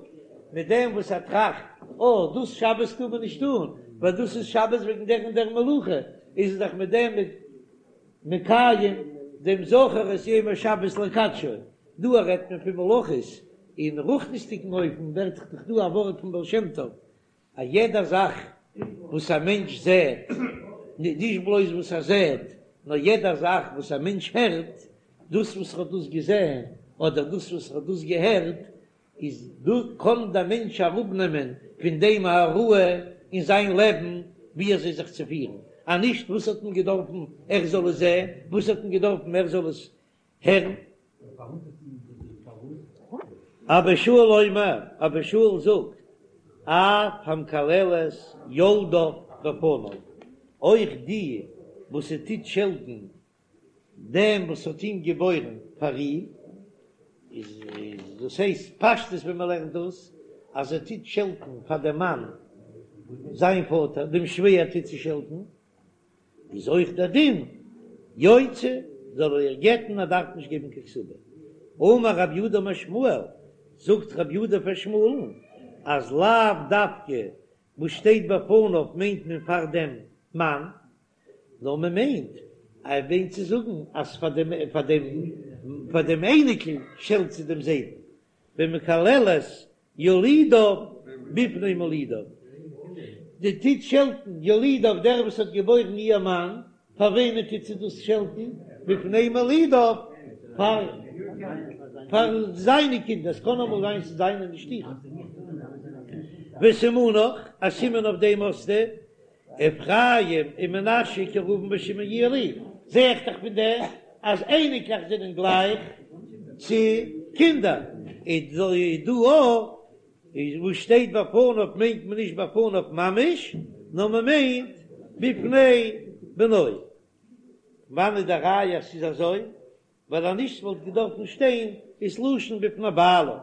מיט דעם וואס ער טראכט, אה, דאס שבת טאר מען נישט טאן, ווייל דאס איז שבת וועגן דער און דער מלאכה, איז ער דאך מיט דעם מקיים דעם זכור את יום השבת לקדשו. דא רעדט מען פון מלאכות, אין רוחניות'דיגן אופן ווערט דאך דא א ווארט פון בעל שם טוב, א יעדע זאך וואס א מענטש זעט, נישט בלויז וואס ער זעט, נאר יעדע זאך וואס א מענטש הערט, דאס וואס ער האט דאס געזען אדער דאס וואס ער האט דאס געהערט, איז דא קען דער מענטש אראפנעמען פון דעם א הוראה אין זיין לעבן ווי אזוי זיך צו פירן, אז נישט וואס האט מען געדארפן ער זאל עס זען, וואס האט מען געדארפן ער זאל עס הערן. אבא שאול אומר, אבא שאול זאגט, אף המקללת יולדיו בפניו, אויך די וואס ס'טוט שעלטן דעם וואס האט אים געבוירן פאר איר, איז דאס הייסט פשטות ווען מען לערנט דאס, אז ער טוט שעלטן פאר דעם מאן זיין פאטער, דעם שווער טוט זי שעלטן, איז אויך דער דין יוציא, זאל ער איר גט'ן, ער דארף נישט געבן קיין כתובה. אמר רב יהודה אמר שמואל, זאגט רב יהודה פאר שמואל'ן, אז לאו דווקא וואס שטייט בפניו מיינט מען פאר דעם מאן, נאר מען מיינט, ער מיינט צו זאגן אז פאר דעם פאר דעם פאר דעם אייניקל שעלט זי דעם זיידן, במקללת יולידיו בפני מולידיו, די טוט שעלטן יולידיו דער וואס האט געבוירן איר מאן, פאר וועמען טוט זי דאס שעלטן? בפני מולידיו, פאר פאר זיינע קינדער, עס קען אמאל זיין ס'איז זיינע נישט אירע. וסימנך, א סימן אויף דעם האסטו, אפרים ומנשה כראובן ושמעון יהיו לי, זע איך דאך פון דעם אז אייניקלעך זענען גלייך צו קינדער, איז דא אויך וואס שטייט בפניו מיינט מען נישט בפניו ממש, נאר מען מיינט בפני בנו. וואנעט איז די ראיה אז ס'איז אזוי? ווייל אז נישט וואלט געדארפן שטיין איז לשון בפני בעלה.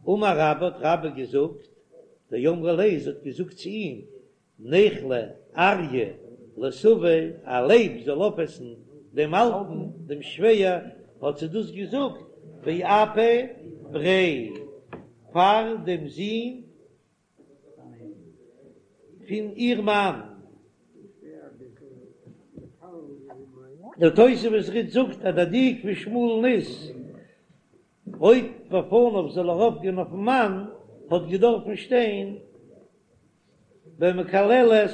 אמר רבה האט רבה געזאגט, דאמרה ליה זי האט געזאגט צו אים, ניכלה אריא לסבא, א לייב זאל אויפעסן דעם אלטן, דעם שווער, האט זי דאס געזאגט באפי בריה, פאר דעם זון פון איר מאן. דער תוספות רי"ד זאגט אז דער דיוק פון שמואל'ן איז, אויב בפניו זאל ארויפגיין אויפן מאן, האט געדארפן שטיין במקללת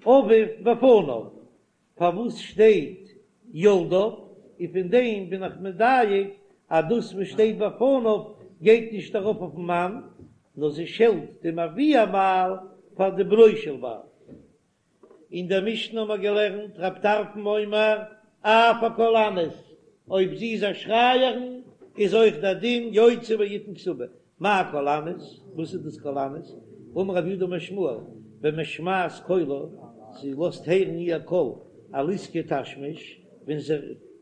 אביו בפניו, פארוואס שטייט יולדיו, און פון דעם בין איך מדייק אז דאס וואס שטייט בפניו גייט נישט ארויף אויפן מאן, נאר זי שעלט דעם אבי הבעל פאר די בנו של בעל. אין דער משנה האבן מיר געלערנט רב טרפון אומר אף הקולנית, אויב זי איז א שרייערין איז אויך דער דין יוציא ויתן כתובה, מאי קולנית? וואס איז דאס קולנית? אמר רב יהודה אמר שמואל, במשמעת קולה, זי לאזט הערן איר קול על עסקי תשמיש, ווען זי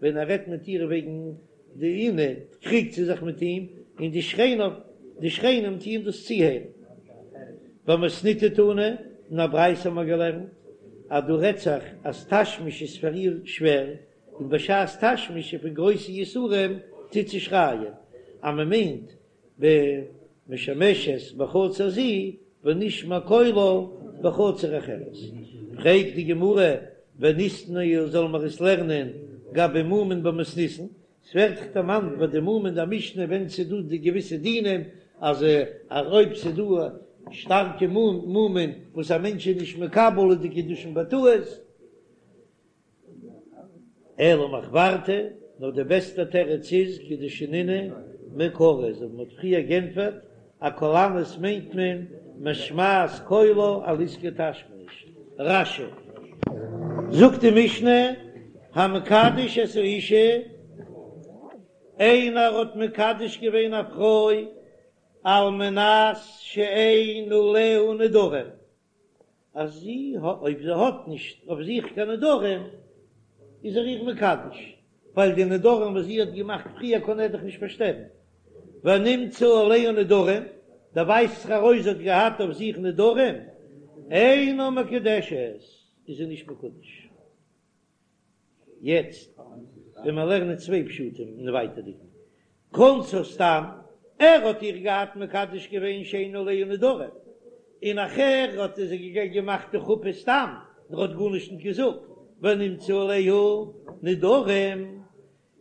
ווען ער רעדט מיט איר וועגן די עונה, קריגט זי זיך מיט אים, און די שכנים די שכנים טוען דאס צוהערן. במתניתא תנא, אין א ברייתא האבן מיר געלערנט אז דא רעדט זיך אז תשמיש איז פאר איר שווער, און בשעת תשמיש איז פון גרויסע יסורים טוט זי שרייען אז מען מיינט במשמשת בחצר זו ונשמע קולה בחצר אחרת. פרעגט די גמרא וניתנייה זאל מיר עס לערנען גבי מומין במתניתין, ס'ווערט דאך דערמאנט ביי די מומין אין די משנה ווען ס'איז דא די געוויסע דינים אז אז אויב ס'איז דא שטארקע מומין וואס א מענטש איז נישט מקבל איז די קידושין בטעות, אלא מחוורתא, נאר די בעסטע תירוץ איז כדשנינן מעיקרא, אזוי ווי מ'האט פריער גענטפערט, א קולנית מיינט מען משמעת קולה על עסקי תשמיש. רש"י. זאגט די משנה, המקדש את האשה, איינער האט מקדש געווען א פרוי על מנת שאין עליה נדרים, אז זי האט, אויב זי האט נישט אויף זיך קיין נדרים, איז ער איר מקדש, ווייל די נדרים וואס זי האט געמאכט פריער קען ער דאך נישט פארשטערן. ונמצאו עליה נדרים, דערווייזט זיך ארויס זי האט געהאט אויף זיך נדרים, אינה מקודשת, איז זי נישט מקודש. יעצט ווען מיר לערנען צוויי פשטים אין ווייטערדיגן כנסה סתם, ער האט איר געהאט מקדש געווען שאין עליה נדרים, און נאכער האט ער זי געמאכט די חופה סתם, ער האט גארנישט נישט געזאגט, ונמצאו עליה נדרים,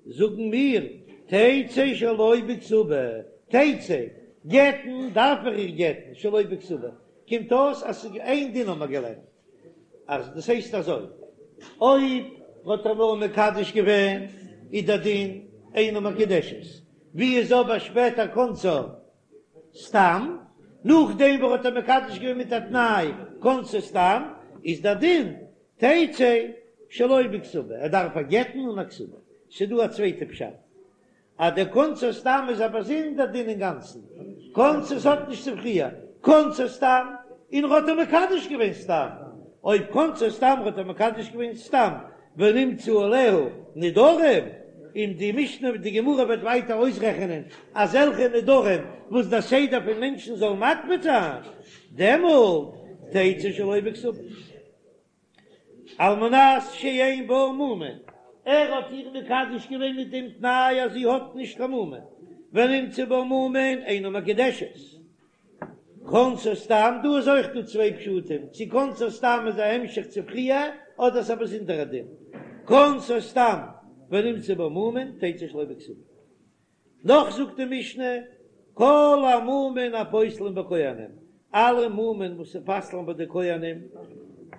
זאגן מיר, תצא שלא בכתובה, תצא, גט'ן דארף ער איר גט'ן שלא בכתובה, קומט אויס אז ס'איז איין דין האבן מיר געלערנט. אז דאס הייסט אזוי, אויב האט ער נאר מקדש געווען איז דער דין. אינה מקודשת, ווי איז אבער שפעטער כנסה סתם, נאכדעם וואס ער האט איר מקדש געווען מיט א תנאי כנסה סתם, איז דער דין תצא שלא בכתובה, ער דארף איר גט'ן אן א כתובה. ס'דא א צווייטע פשט, אז דער כנסה סתם איז א באזונדער דין אינגאנצן, כנסה ס'האט נישט צו פריער, כנסה סתם, און ער האט איר מקדש געווען סתם, אויב כנסה סתם האט ער מקדש געווען סתם ונמצאו עליה נדרים, און די משנה די גמרא וועט ווייטער אויסרעכענען אזעלכע נדרים וואס דער סדר פון מענטשן זאל מקפיד זיין, דעמאלט תצא שלא בכתובה. על מנת שאין בה מומין, ער האט איר מקדש געווען מיט דעם תנאי אז זי האט נישט קיין מומין, ונמצאו בה מומין אינה מקודשת. כנסה סתם, דא איז אויך דא צוויי פשטים, צו כנסה סתם איז א המשך צו פריער, אדער ס'איז א באזונדערע דין. כנסה סתם ונמצאו בה מומין תצא שלא בכתובה. נאך זאגט די משנה, כל המומין הפוסלין בכהנים, אלע מומין וואס פסל'ן ביי די כהנים,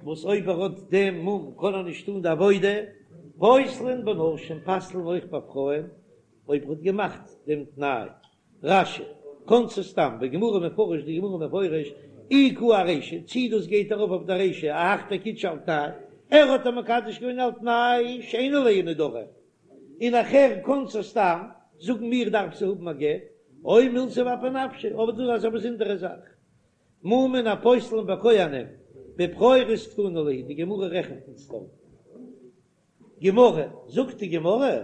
וואס אויב ער האט דעם מום קען ער נישט טון די עבודה, פוסלין בנשים, פסל'ן אויך ביי פרויען, אויב ער האט געמאכט דעם תנאי. רש"י, כנסה סתם, בגמרא מפרש, די גמרא מפרש, אי קאי ארישא, צי דאס גייט ארויף אויף די רישא, אהך דקידשה על תנאי, ער האט איר מקדש געווען על תנאי שאין עליה נדרים, און נאכהער כנסה סתם, זאגן מיר דארף זי האבן א גט, או מילתא באפי נפשה, אבער דאס איז א באזונדערע זאך. מומין הפוסלין בכהנים, בבכורות קתני להו, די גמרא רעכנט אונז דארט. גמרא, זאגט די גמרא,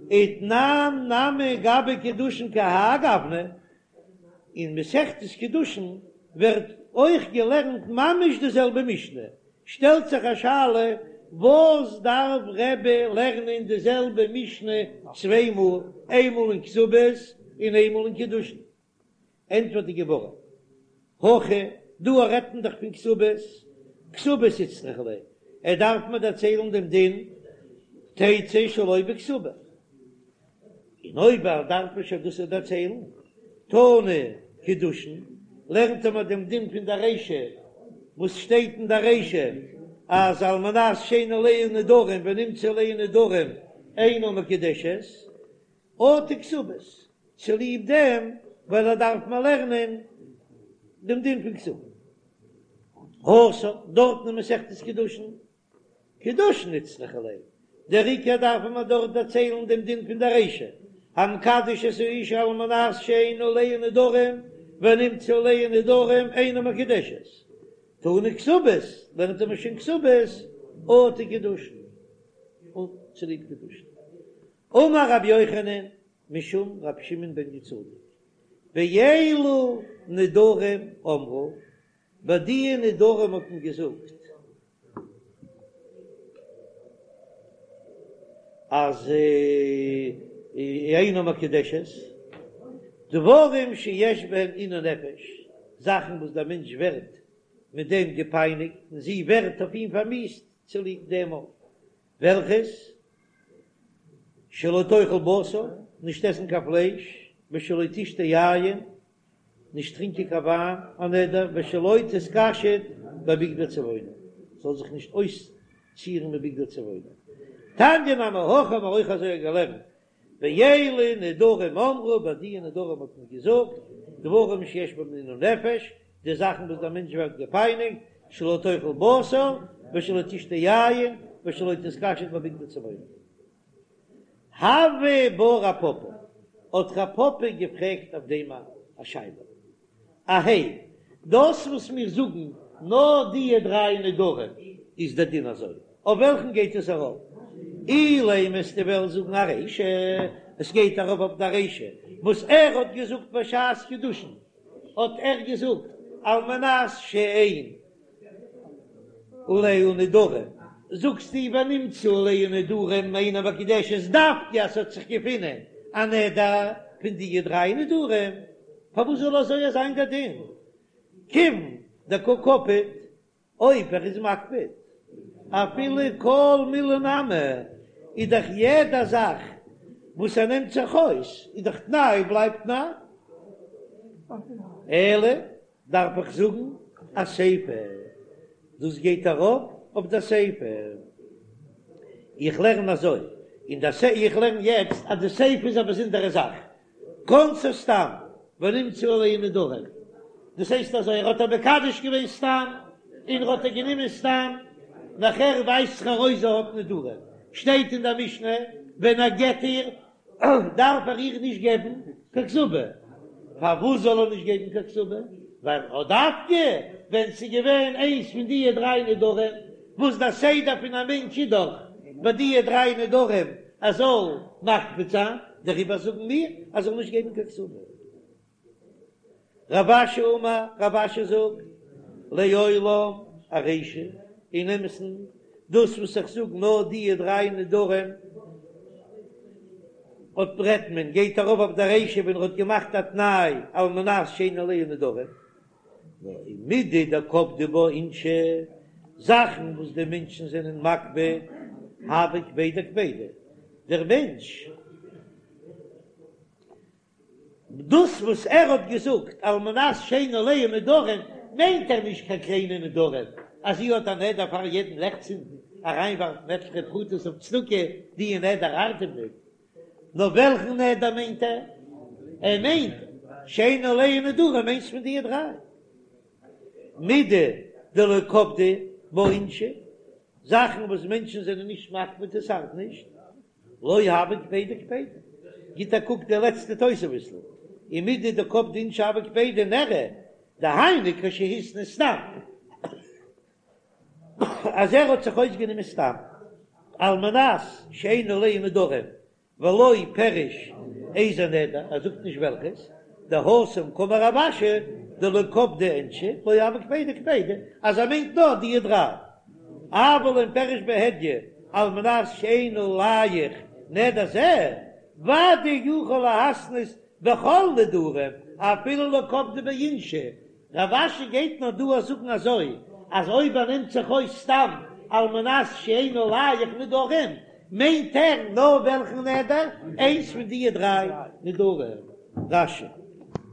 ותנן נמי גבי קידושין כהאי גוונא, אין מסכת קידושין ווערט אויך געלערנט ממש די זעלבע משנה, שטעלט זיך א שאלה, וואס דארף רבי לערנען די זעלבע משנה צוויי מאל, איינמאל אין כתובות און איינמאל אין קידושין? ענטפערט די גמרא, הכא, דא רעדט מען דאך פון כתובות, כתובות איצטריכא ליה, ער דארף מיר דערציילן דעם דין תצא שלא בכתובה, און אויב ער דארף מיר שוין דאס דערציילן, תנא קידושין, לערנט ער מיר דעם דין פון דער רישא, וואס שטייט אין דער רישא אז על מנת שאין עליה נדרים ונמצאו עליה נדרים אינה מקודשת, אטו כתובות, צוליב דעם ווייל ער דארף מיר לערנען דעם דין פון כתובה. התם, דארטן אין מסכת קידושין, קידושין איצטריכא ליה, דער עיקר דארף מען דארט דערציילן דעם דין פון דער רישא, המקדש את האשה על מנת שאין עליה נדרים ונמצאו עליה נדרים אינה מקודשת, תנא כתובות, לערנט ער מיר שוין כתובות, אטו קידושין, און צוליב קידושין. אמר רבי יוחנן משום רבי שמעון בן יהוצדק, באלו נדרים אמרו, ביי די נדרים האט מען געזאגט אז אינה מקודשת, דברים שיש בהן עינוי נפש, זאכן וואס דער מענטש ווערט מיט דעם געפייניגט און זי ווערט אויף אים פארמיאוסט צוליב דעם אויך, וועלכעס? שלא תאכל בשר, נישט עסן קיין פלייש, ושלא תשתה יין, נישט טרינקען קיין וויין, א נדר, ושלא תתקשט בבגדי צבעונין, זאל זיך נישט אויסצירן מיט בגדי צבעונין. תניא נמי הכי האבן מיר אויך אזוי געלערנט, באלו נדרים אמרו, ביי די נדרים האט מען געזאגט, דברים שיש בהם עינוי נפש, די זאכן וואס דער מענטש ווערט געפייניגט, שלא תאכל בשר, ושלא תשתה יין, ושלא תתקשט בבגדי צבעונין. הוי בה רב פפא, האט רב פפא געפרעגט אויף דעם א שאלה. אהייא, דאס וואס מיר זאגן נאר די דריי נדרים איז דער דין אזוי, אויף וועלכן גייט עס ארויף? אילימא וועסטו וועלן זאגן ארישא, עס גייט ארויף אויף די רישא וואס ער האט געזאגט בשעת קידושין, האט ער געזאגט על מנת שאין עליה נדרים, זאגסטו ונמצאו עליה נדרים אינה מקודשת דווקא אז ס'האט זיך געפונען א נדר פון די דריי נדרים, פארוואס זאל אזוי זיין דער דין? כיוון דקא קפיד, אויב ער איז מקפיד אפילו כל מילי נמי, איז דאך יעדע זאך וואס ער נעמט זיך אויס איז דאך תנאי בלייבט תנאי, אלא דארף איך זאגן אסיפא, דאס גייט ארויף אויף די סיפא, איך לערן אזוי. און די סיפא, איך לערן יעצט אז די סיפא איז א באזונדערע זאך, כנסה סתם ונמצאו עליה נדרים, דאס הייסט אזוי, ער האט איר מקדש געווען סתם, און ער האט איר גענומען סתם, נאכער ווייזט זיך ארויס זי האט נדרים, שטייט אין די משנה, ווען ער גט איר, דארף ער איר נישט געבן קיין כתובה. פארוואס זאל ער נישט געבן קיין כתובה? ווייל אט דווקא ווען ס'איז געווען איינס פון דיע דריי נדרים, וואס דער סדר פון א מענטש איז דאך ביי דיע דריי נדרים ער זאל מקפיד זיין, דעריבער זאגן מיר אז ער זאל נישט געבן קיין כתובה. רב אשי אמר, רב אשי זאגט, לעולם ארישא, אין אמת'ן, דאס וואס איך זאג נאר דיע דריי נדרים, אט רעדט מען, גייט ארויף אויף די רישא ווען ער האט געמאכט א תנאי על מנת שאין עליה נדרים, נאר מידי דקפדי בה אינשי, זאכן וואס די מענטשן זענען מקפיד, הוה קפידא קפידא, דער מענטש. דאס וואס ער האט געזאגט על מנת שאין עליה נדרים מיינט ער נישט קיין קליינע נדרים, אז זי האט א נדר פאר יעדן לעכט צינדן אריינווארפן עטליכע פרוטות אויף צדקה, די נדר ארט אים ניט. נאר וועלכן נדר מיינט ער? ער מיינט שאין עליה נדרים איינס פון די דריי. מידי דלא קפדי בה אינשי, זאכן וואס מענטשן זענען נישט מקפיד עס ארט נישט. לא הוה קפידא קפידא. גיט א קוק די לעצטע תוספות'ל, ומידי דקפדי אינשי הוה קפידא נראה דהיינו כשהתנה סתם, אז ער האט זיך אויסגענומען סתם על מנת שאין עליה נדרים ולא פירש איזה נדר, ער זאגט נישט וועלכעס, דהתם קאמר רב אשי דלא קפדי אינשי לא הוה קפידא קפידא, אז ער מיינט נאר די דריי. אבל אם פירש בהדיא על מנת שאין עליך נדר זה, ודאי יכול להתנות בכל נדרים אפילו לא קפדי ביה אינשי. רב אשי גייט נאר דא זאגן אזוי אז אויב ער נעמט זיך אויס סתם על מנת שאין עליך נדרים מיינט ער נאר וועלכן נדר? איינס פון דיע דריי נדרים. רש"י.